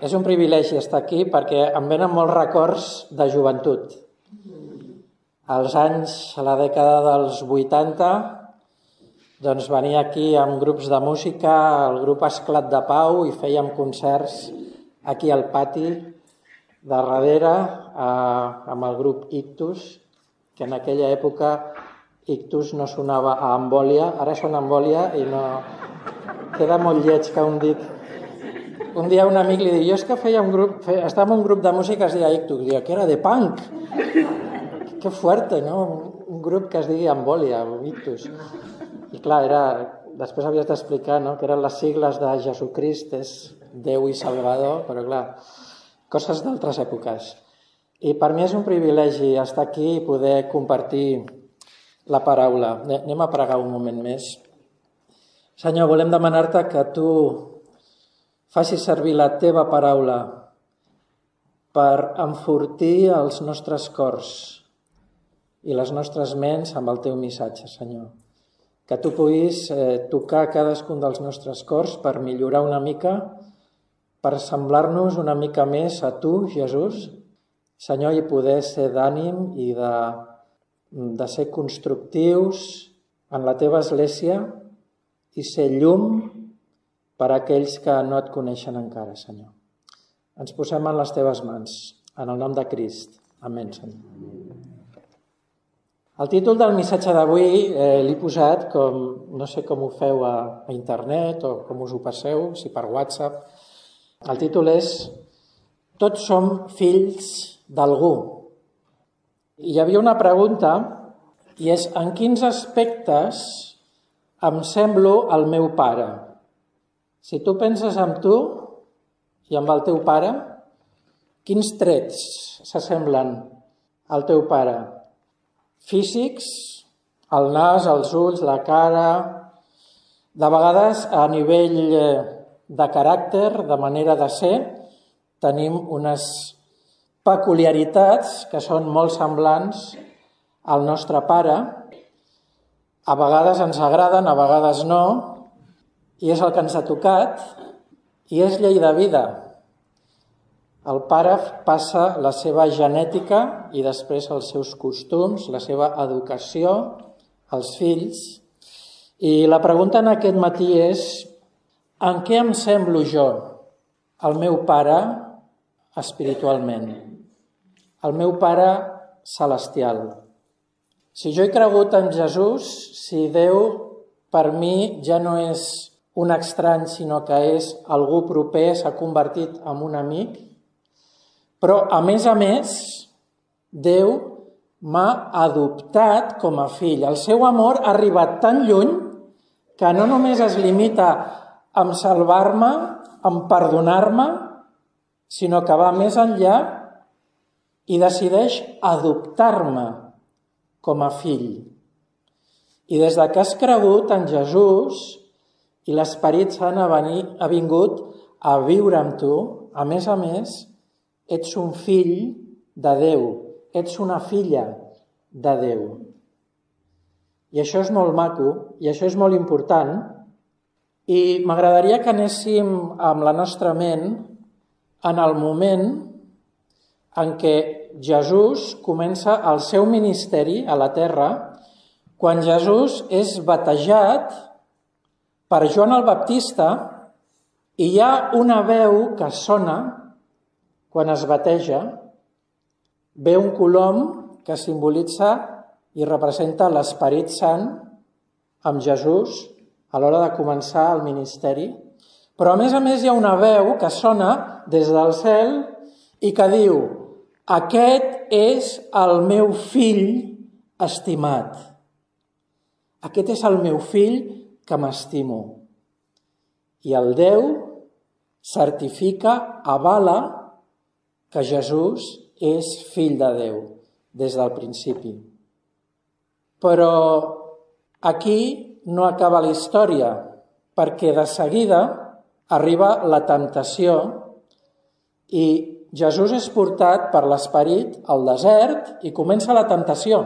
És un privilegi estar aquí perquè em venen molts records de joventut. Als anys, a la dècada dels 80, doncs venia aquí amb grups de música, el grup Esclat de Pau, i fèiem concerts aquí al pati de darrere amb el grup Ictus, que en aquella època Ictus no sonava a Embòlia, ara sona Embòlia i no... Queda molt lleig que un dit... Un dia un amic li diu, jo és que estava en un grup de música que es deia Ictus, i que era de punk. Que fuerte, no? Un grup que es digui Embòlia, Ictus. I clar, després havies d'explicar, no? Que eren les sigles de Jesucrist, és Déu i Salvador, però clar, coses d'altres èpoques. I per mi és un privilegi estar aquí i poder compartir la paraula. Anem a pregar un moment més. Senyor, volem demanar-te que tu facis servir la teva paraula per enfortir els nostres cors i les nostres ments amb el teu missatge, Senyor. Que tu puguis tocar cadascun dels nostres cors per millorar una mica, per semblar-nos una mica més a tu, Jesús, Senyor, i poder ser d'ànim i de ser constructius en la teva església i ser llum per a aquells que no et coneixen encara, Senyor. Ens posem en les teves mans, en el nom de Crist. Amén, Senyor. El títol del missatge d'avui l'he posat com, no sé com ho feu a internet o com us ho passeu, si per WhatsApp. El títol és Tots som fills d'algú. I hi havia una pregunta, i és en quins aspectes em semblo al meu pare? Si tu penses en tu i amb el teu pare, quins trets s'assemblen al teu pare? Físics, el nas, els ulls, la cara, de vegades a nivell de caràcter, de manera de ser, tenim unes peculiaritats que són molt semblants al nostre pare. A vegades ens agraden, a vegades no, i és el que ens ha tocat, i és llei de vida. El pare passa la seva genètica i després els seus costums, la seva educació, als fills. I la pregunta en aquest matí és, en què em semblo jo, el meu pare espiritualment, el meu pare celestial? Si jo he cregut en Jesús, si Déu per mi ja no és un estrany, sinó que és algú proper, s'ha convertit en un amic, però a més, Déu m'ha adoptat com a fill. El seu amor ha arribat tan lluny que no només es limita a salvar-me, a perdonar-me, sinó que va més enllà i decideix adoptar-me com a fill. I des que has cregut en Jesús i l'Esperit Sant ha vingut a viure amb tu, a més, ets un fill de Déu, ets una filla de Déu. I això és molt maco, i això és molt important, i m'agradaria que anéssim amb la nostra ment en el moment en què Jesús comença el seu ministeri a la terra, quan Jesús és batejat per Joan el Baptista, i hi ha una veu que sona quan es bateja, ve un colom que simbolitza i representa l'Esperit Sant amb Jesús a l'hora de començar el ministeri, però a més hi ha una veu que sona des del cel i que diu: aquest és el meu fill estimat. Aquest és el meu fill que m'estimo. I el Déu certifica, avala que Jesús és fill de Déu des del principi. Però aquí no acaba la història, perquè de seguida arriba la temptació i Jesús és portat per l'Esperit al desert i comença la temptació.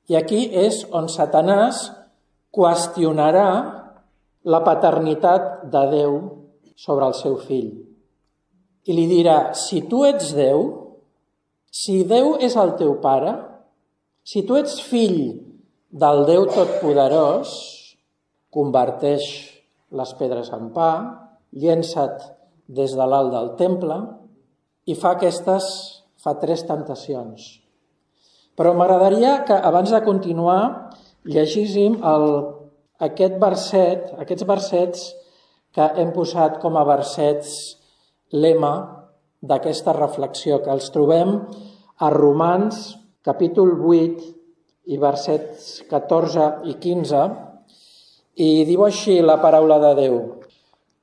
I aquí és on Satanàs qüestionarà la paternitat de Déu sobre el seu fill. i li dirà, si tu ets Déu, si Déu és el teu pare, si tu ets fill del Déu Totpoderós, converteix les pedres en pa, llença't des de l'alt del temple i fa 3 temptacions. Però m'agradaria que abans de continuar llegíssim aquests versets que hem posat com a versets lema d'aquesta reflexió, que els trobem a Romans, capítol 8, i versets 14 i 15, i diu així la paraula de Déu.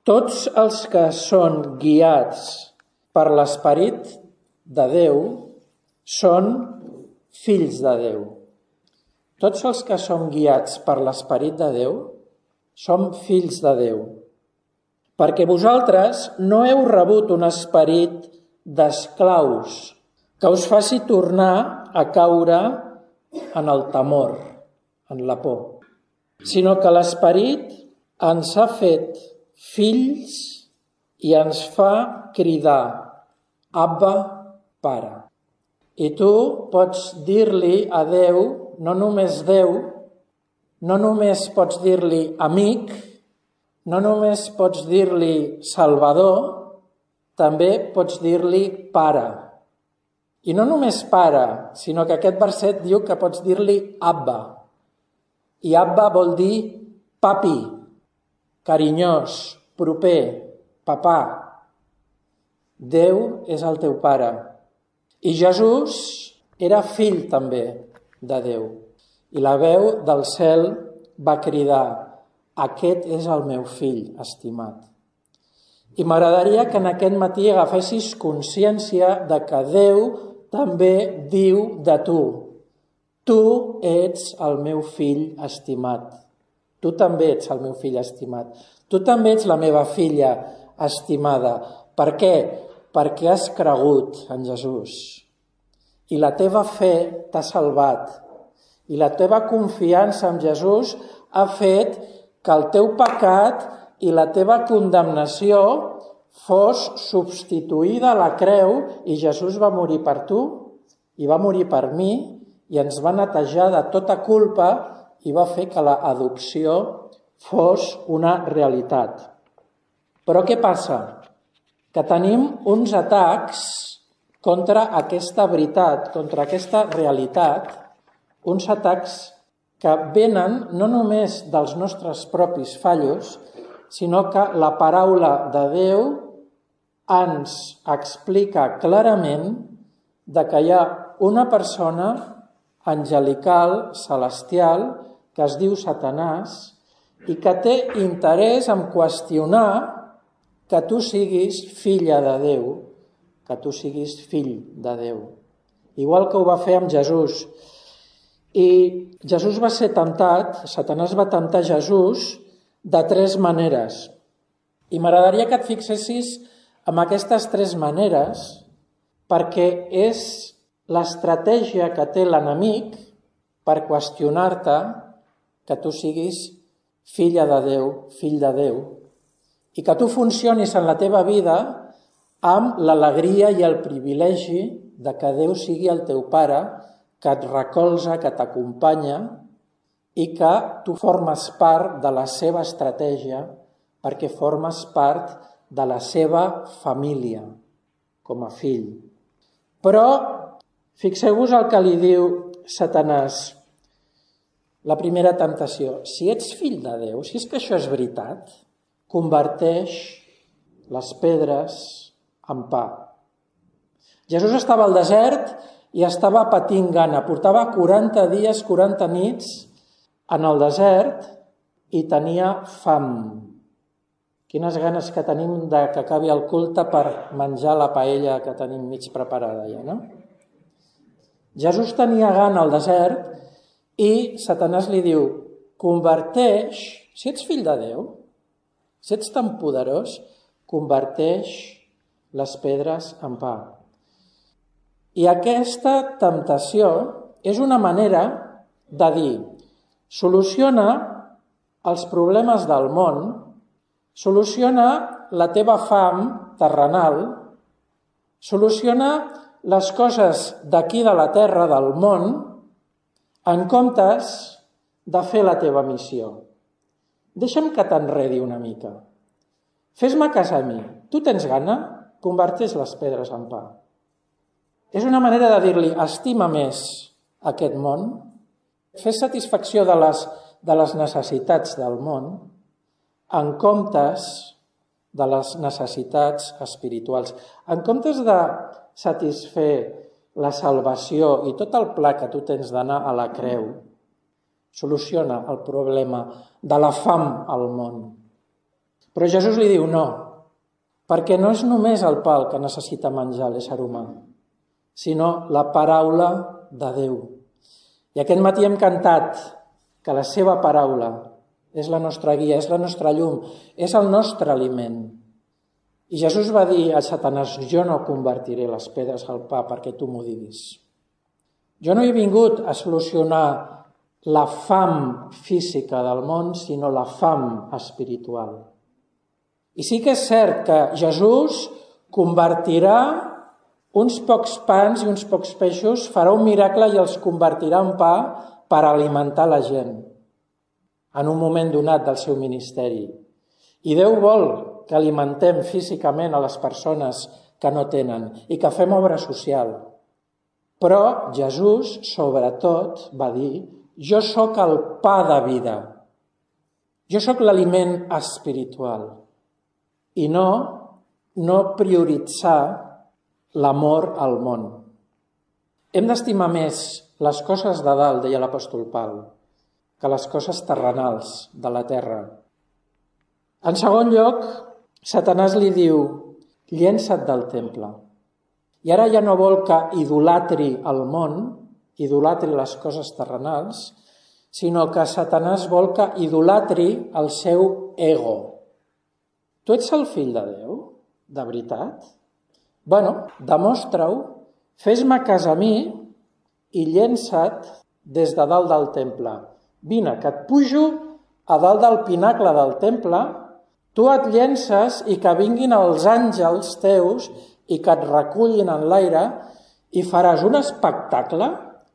Tots els que són guiats per l'Esperit de Déu són fills de Déu. Tots els que som guiats per l'Esperit de Déu som fills de Déu. Perquè vosaltres no heu rebut un esperit d'esclaus que us faci tornar a caure en el temor, en la por, sinó que l'Esperit ens ha fet fills i ens fa cridar, Abba, Pare. I tu pots dir-li a Déu, no només Déu, no només pots dir-li amic, no només pots dir-li Salvador, també pots dir-li Pare. I no només Pare, sinó que aquest verset diu que pots dir-li Abba. I Abba vol dir papi, carinyós, proper, papà. Déu és el teu pare. I Jesús era fill també de Déu. I la veu del cel va cridar, aquest és el meu fill estimat. I m'agradaria que en aquest matí agafessis consciència de que Déu també diu de tu. Tu ets el meu fill estimat. Tu també ets el meu fill estimat. Tu també ets la meva filla estimada. Per què? Perquè has cregut en Jesús. I la teva fe t'ha salvat. I la teva confiança en Jesús ha fet que el teu pecat i la teva condemnació fos substituïda a la creu i Jesús va morir per tu i va morir per mi i ens va netejar de tota culpa i va fer que l'adopció fos una realitat. Però què passa? Que tenim uns atacs contra aquesta veritat, contra aquesta realitat, uns atacs que venen no només dels nostres propis fallos, sinó que la paraula de Déu ens explica clarament que hi ha una persona angelical, celestial, que es diu Satanàs i que té interès en qüestionar que tu siguis filla de Déu, que tu siguis fill de Déu. Igual que ho va fer amb Jesús. I Jesús va ser temptat, Satanàs va temptar Jesús de 3 maneres. I m'agradaria que et fixessis en aquestes 3 maneres perquè és l'estratègia que té l'enemic per qüestionar-te que tu siguis filla de Déu, fill de Déu, i que tu funcionis en la teva vida amb l'alegria i el privilegi de que Déu sigui el teu pare, que et recolza, que t'acompanya i que tu formes part de la seva estratègia perquè formes part de la seva família com a fill. Però fixeu-vos el que li diu Satanàs, la primera temptació. Si ets fill de Déu, si és que això és veritat, converteix les pedres en pa. Jesús estava al desert i estava patint gana. Portava 40 dies, 40 nits en el desert i tenia fam. Quines ganes que tenim que acabi el culte per menjar la paella que tenim mig preparada ja, no? Jesús tenia gana al desert i Satanàs li diu, converteix, si ets fill de Déu, si ets tan poderós, converteix les pedres en pa. I aquesta temptació és una manera de dir, soluciona els problemes del món, soluciona la teva fam terrenal Soluciona les coses d'aquí de la terra, del món, en comptes de fer la teva missió. Deixa'm que t'enredi una mica. Fes-me cas a mi. Tu tens gana? Converteix les pedres en pa. És una manera de dir-li, estima més aquest món, fes satisfacció de les necessitats del món, en comptes de les necessitats espirituals. En comptes de satisfer la salvació i tot el pla que tu tens d'anar a la creu, soluciona el problema de la fam al món. Però Jesús li diu no, perquè no és només el pa el que necessita menjar l'ésser humà, sinó la paraula de Déu. I aquest matí hem cantat que la seva paraula és la nostra guia, és la nostra llum, és el nostre aliment. I Jesús va dir a Satanàs, jo no convertiré les pedres al pa perquè tu m'ho diguis. Jo no he vingut a solucionar la fam física del món, sinó la fam espiritual. I sí que és cert que Jesús convertirà uns pocs pans i uns pocs peixos, farà un miracle i els convertirà en pa per alimentar la gent en un moment donat del seu ministeri. I Déu vol que alimentem físicament a les persones que no tenen i que fem obra social. Però Jesús, sobretot, va dir, jo sóc el pa de vida. Jo sóc l'aliment espiritual. I no prioritzar l'amor al món. Hem d'estimar més les coses de dalt, deia l'apòstol Pau, que les coses terrenals de la terra. En segon lloc, Satanàs li diu, llença't del temple. I ara ja no vol que idolatri el món, idolatri les coses terrenals, sinó que Satanàs vol que idolatri el seu ego. Tu ets el fill de Déu? De veritat? Bueno, demostra-ho, fes-me cas a mi i llença't des de dalt del temple. Vine, que et pujo a dalt del pinacle del temple, tu et llences i que vinguin els àngels teus i que et recullin en l'aire i faràs un espectacle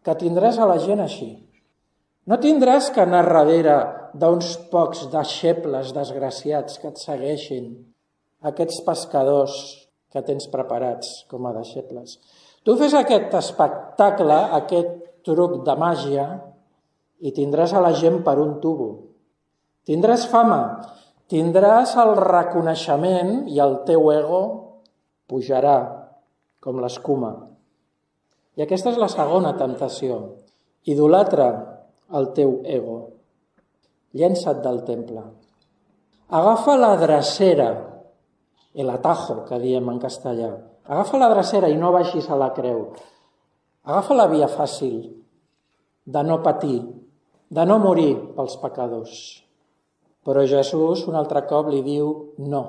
que tindràs a la gent així. No tindràs que anar darrere d'uns pocs deixebles desgraciats que et segueixin, aquests pescadors que tens preparats com a deixebles. Tu fes aquest espectacle, aquest truc de màgia, i tindràs a la gent per un tubo. Tindràs fama, tindràs el reconeixement i el teu ego pujarà com l'escuma. I aquesta és la segona temptació. Idolatra el teu ego. Llença't del temple. Agafa la drecera, el atajo, que diem en castellà. Agafa la drecera i no baixis a la creu. Agafa la via fàcil de no patir, de no morir pels pecadors. Però Jesús un altre cop li diu no.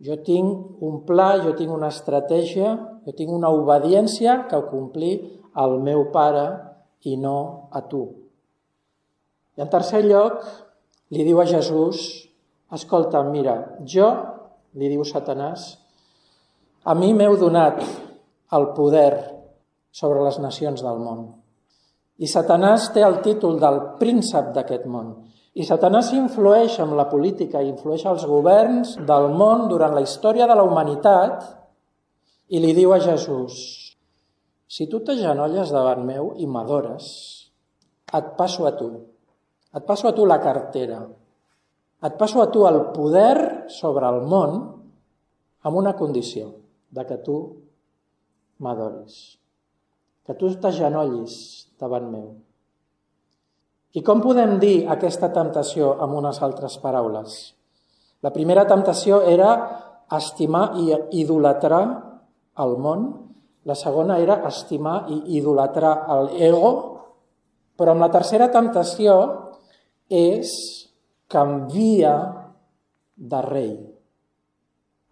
Jo tinc un pla, jo tinc una estratègia, jo tinc una obediència que complir al meu pare i no a tu. I en tercer lloc, li diu a Jesús, escolta, mira, jo, li diu Satanàs, a mi m'heu donat el poder sobre les nacions del món. I Satanàs té el títol del príncep d'aquest món. I Satanàs influeix en la política, influeix als governs del món durant la història de la humanitat i li diu a Jesús, si tu t'agenolles davant meu i m'adores, et passo a tu. Et passo a tu la cartera. Et passo a tu el poder sobre el món amb una condició, de que tu m'adoris, que tu t'agenollis davant meu. I com podem dir aquesta temptació amb unes altres paraules? La primera temptació era estimar i idolatrar el món, la segona era estimar i idolatrar l'ego, però amb la tercera temptació és canvia de rei,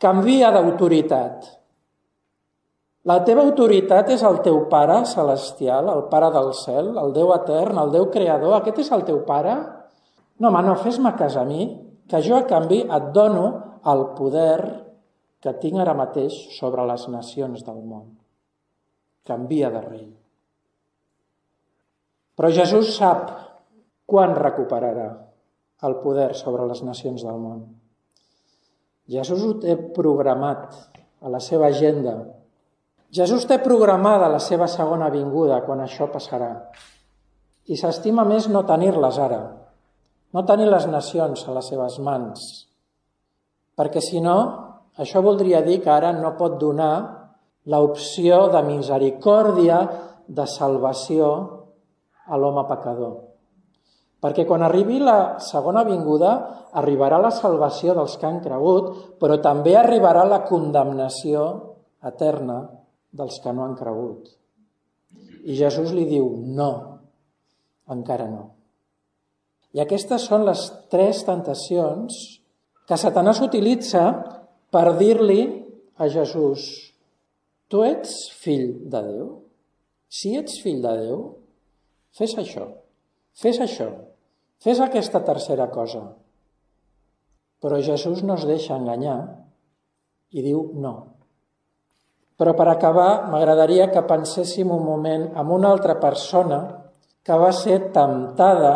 canvia d'autoritat. La teva autoritat és el teu Pare celestial, el Pare del cel, el Déu etern, el Déu creador. Aquest és el teu Pare? No, home, no, fes-me cas a mi, que jo a canvi et dono el poder que tinc ara mateix sobre les nacions del món. Canvia de rei. Però Jesús sap quan recuperarà el poder sobre les nacions del món. Jesús ho té programat a la seva agenda. Jesús té programada la seva segona vinguda quan això passarà. I s'estima més no tenir-les ara, no tenir les nacions a les seves mans, perquè si no, això voldria dir que ara no pot donar l'opció de misericòrdia, de salvació a l'home pecador. Perquè quan arribi la segona vinguda, arribarà la salvació dels que han cregut, però també arribarà la condemnació eterna dels que no han cregut. I Jesús li diu, no, encara no. I aquestes són les 3 tentacions que Satanàs utilitza per dir-li a Jesús, tu ets fill de Déu? Si ets fill de Déu, fes això, fes aquesta tercera cosa. Però Jesús no es deixa enganyar i diu no. Però per acabar, m'agradaria que penséssim un moment en una altra persona que va ser temptada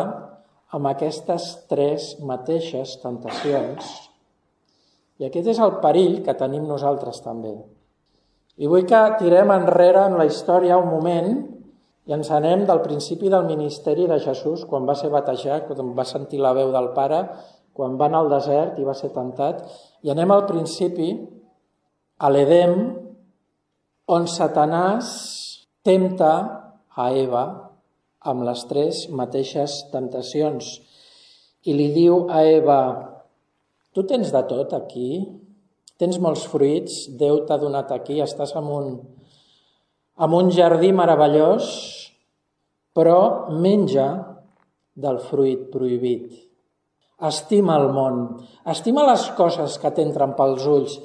amb aquestes 3 mateixes tentacions. I aquest és el perill que tenim nosaltres també. I vull que tirem enrere en la història un moment i ens anem del principi del ministeri de Jesús, quan va ser batejat, quan va sentir la veu del Pare, quan va anar al desert i va ser tentat, i anem al principi, a l'Edem, on Satanàs tempta a Eva amb les 3 mateixes temptacions. I li diu a Eva, tu tens de tot aquí, tens molts fruits, Déu t'ha donat aquí, estàs en un jardí meravellós, però menja del fruit prohibit. Estima el món, estima les coses que t'entren pels ulls,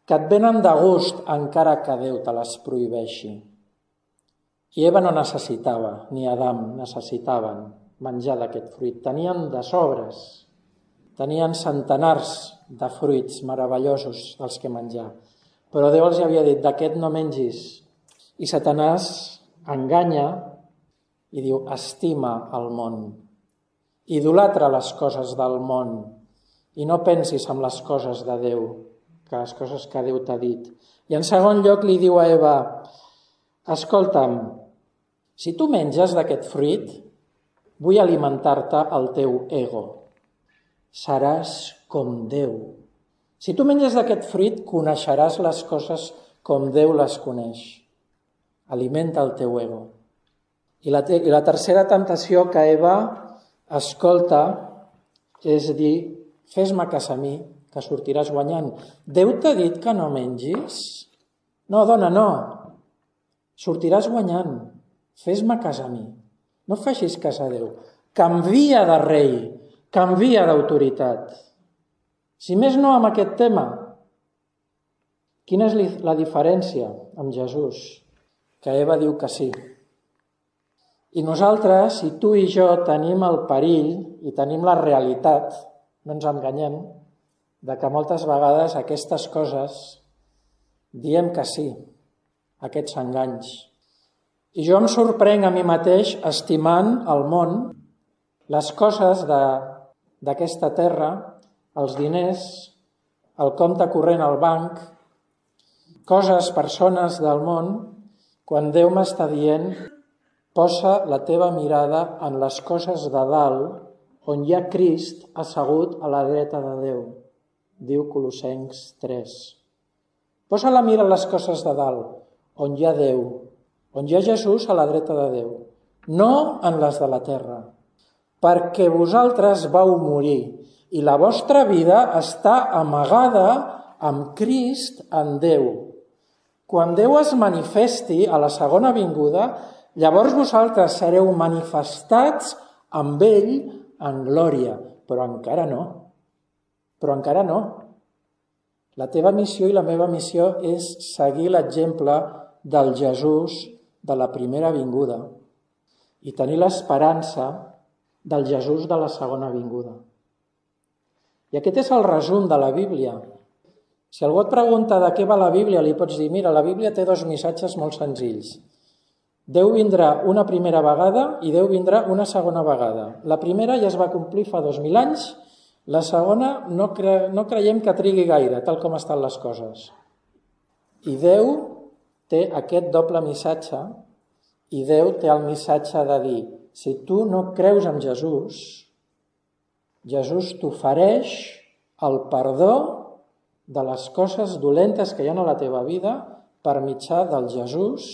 que et venen de gust encara que Déu te les prohibeixi. I Eva no necessitava, ni Adam necessitaven menjar d'aquest fruit. Tenien de sobres, tenien centenars de fruits meravellosos dels que menjar. Però Déu els havia dit, d'aquest no mengis. I Satanàs enganya i diu, estima el món. Idolatra les coses del món i no pensis en les coses de Déu, que les coses que Déu t'ha dit. I en segon lloc li diu a Eva, escolta'm, si tu menges d'aquest fruit, vull alimentar-te el teu ego. Seràs com Déu. Si tu menges d'aquest fruit, coneixeràs les coses com Déu les coneix. Alimenta el teu ego. I la tercera temptació que Eva escolta és dir, fes-me cas a mi, que sortiràs guanyant. Déu t'ha dit que no mengis? No, dona, no. Sortiràs guanyant. Fes-me cas a mi. No facis cas a Déu. Canvia de rei, canvia d'autoritat. Si més no amb aquest tema, quina és la diferència amb Jesús? Que Eva diu que sí. I nosaltres, si tu i jo tenim el perill i tenim la realitat, no ens enganyem, de que moltes vegades aquestes coses diem que sí, aquests enganys. I jo em sorprenc a mi mateix estimant el món, les coses d'aquesta terra, els diners, el compte corrent al banc, coses, persones del món, quan Déu m'està dient, posa la teva mirada en les coses de dalt, on hi ha Crist assegut a la dreta de Déu, diu Colossencs 3. Posa la mira en les coses de dalt, on hi ha Déu, on hi ha Jesús a la dreta de Déu, no en les de la terra, perquè vosaltres vau morir i la vostra vida està amagada amb Crist en Déu. Quan Déu es manifesti a la segona vinguda, llavors vosaltres sereu manifestats amb ell en glòria, però encara no. Però encara no. La teva missió i la meva missió és seguir l'exemple del Jesús de la primera vinguda i tenir l'esperança del Jesús de la segona vinguda. I aquest és el resum de la Bíblia. Si algú et pregunta de què va la Bíblia, li pots dir, mira, la Bíblia té 2 missatges molt senzills. Déu vindrà una primera vegada i Déu vindrà una segona vegada. La primera ja es va complir fa 2000 anys, la segona no creiem que trigui gaire, tal com estan les coses. I Déu té aquest doble missatge, i Déu té el missatge de dir, si tu no creus en Jesús, Jesús t'ofereix el perdó de les coses dolentes que hi ha a la teva vida per mitjà del Jesús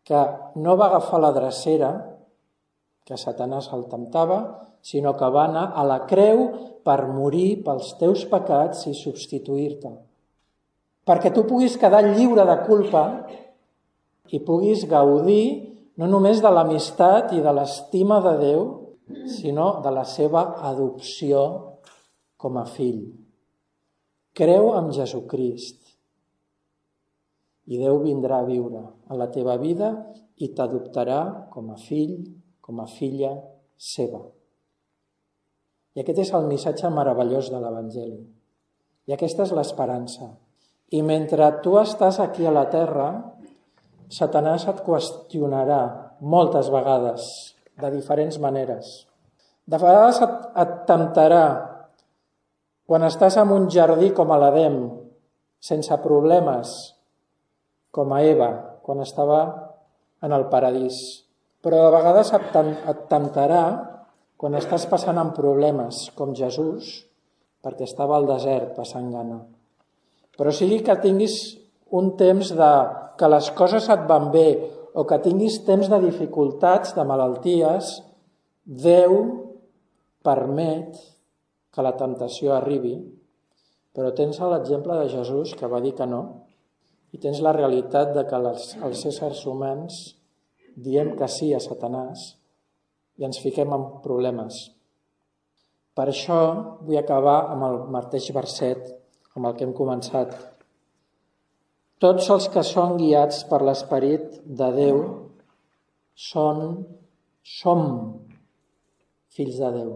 que no va agafar la drecera que Satanàs el temptava, sinó que va anar a la creu per morir pels teus pecats i substituir-te. Perquè tu puguis quedar lliure de culpa i puguis gaudir no només de l'amistat i de l'estima de Déu, sinó de la seva adopció com a fill. Creu en Jesucrist i Déu vindrà a viure a la teva vida i t'adoptarà com a fill, com a filla seva. I aquest és el missatge meravellós de l'Evangeli. I aquesta és l'esperança. I mentre tu estàs aquí a la terra, Satanàs et qüestionarà moltes vegades, de diferents maneres. De vegades et temptarà quan estàs en un jardí com a l'Edem, sense problemes, com a Eva, quan estava en el paradís. Però de vegades et temptarà quan estàs passant en problemes, com Jesús, perquè estava al desert passant gana. Però sigui que tinguis un temps que les coses et van bé o que tinguis temps de dificultats, de malalties, Déu permet que la temptació arribi, però tens l'exemple de Jesús que va dir que no, i tens la realitat de que els éssers humans diem que sí a Satanàs i ens fiquem en problemes. Per això vull acabar amb el mateix verset amb el que hem començat. Tots els que són guiats per l'Esperit de Déu som fills de Déu.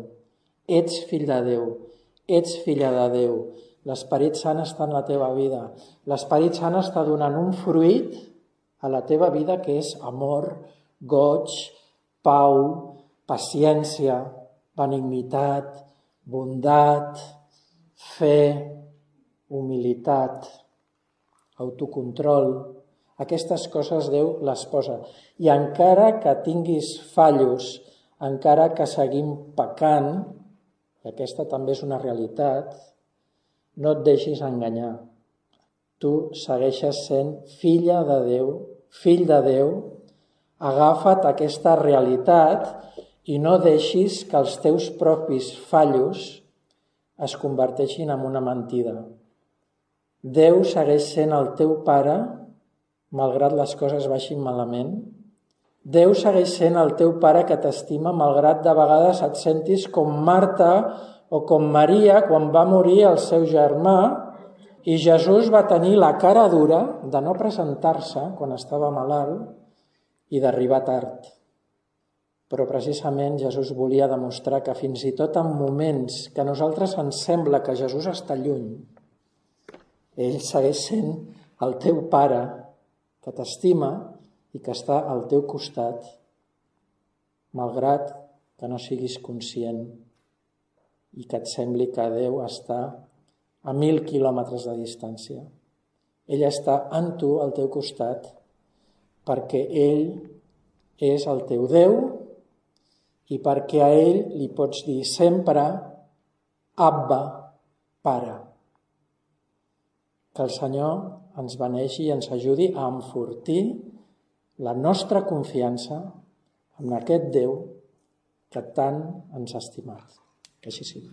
Ets fill de Déu, ets filla de Déu. L'Esperit Sant està en la teva vida. L'Esperit Sant està donant un fruit a la teva vida que és amor, goig, pau, paciència, benignitat, bondat, fe, humilitat, autocontrol. Aquestes coses Déu les posa. I encara que tinguis fallos, encara que seguim pecant, i aquesta també és una realitat, no et deixis enganyar. Tu segueixes sent filla de Déu, fill de Déu, agafa't aquesta realitat i no deixis que els teus propis fallos es converteixin en una mentida. Déu segueix sent el teu pare, malgrat les coses baixin malament. Déu segueix sent el teu pare que t'estima, malgrat de vegades et sentis com Marta o com Maria quan va morir el seu germà i Jesús va tenir la cara dura de no presentar-se quan estava malalt i d'arribar tard. Però precisament Jesús volia demostrar que fins i tot en moments que a nosaltres ens sembla que Jesús està lluny, ell segueix sent el teu pare que t'estima i que està al teu costat, malgrat que no siguis conscient i que et sembli que Déu està a 1000 quilòmetres de distància. Ell està en tu, al teu costat, perquè ell és el teu Déu i perquè a ell li pots dir sempre Abba, Pare. Que el Senyor ens beneixi i ens ajudi a enfortir la nostra confiança en aquest Déu que tant ens ha estimat. Que així sigui.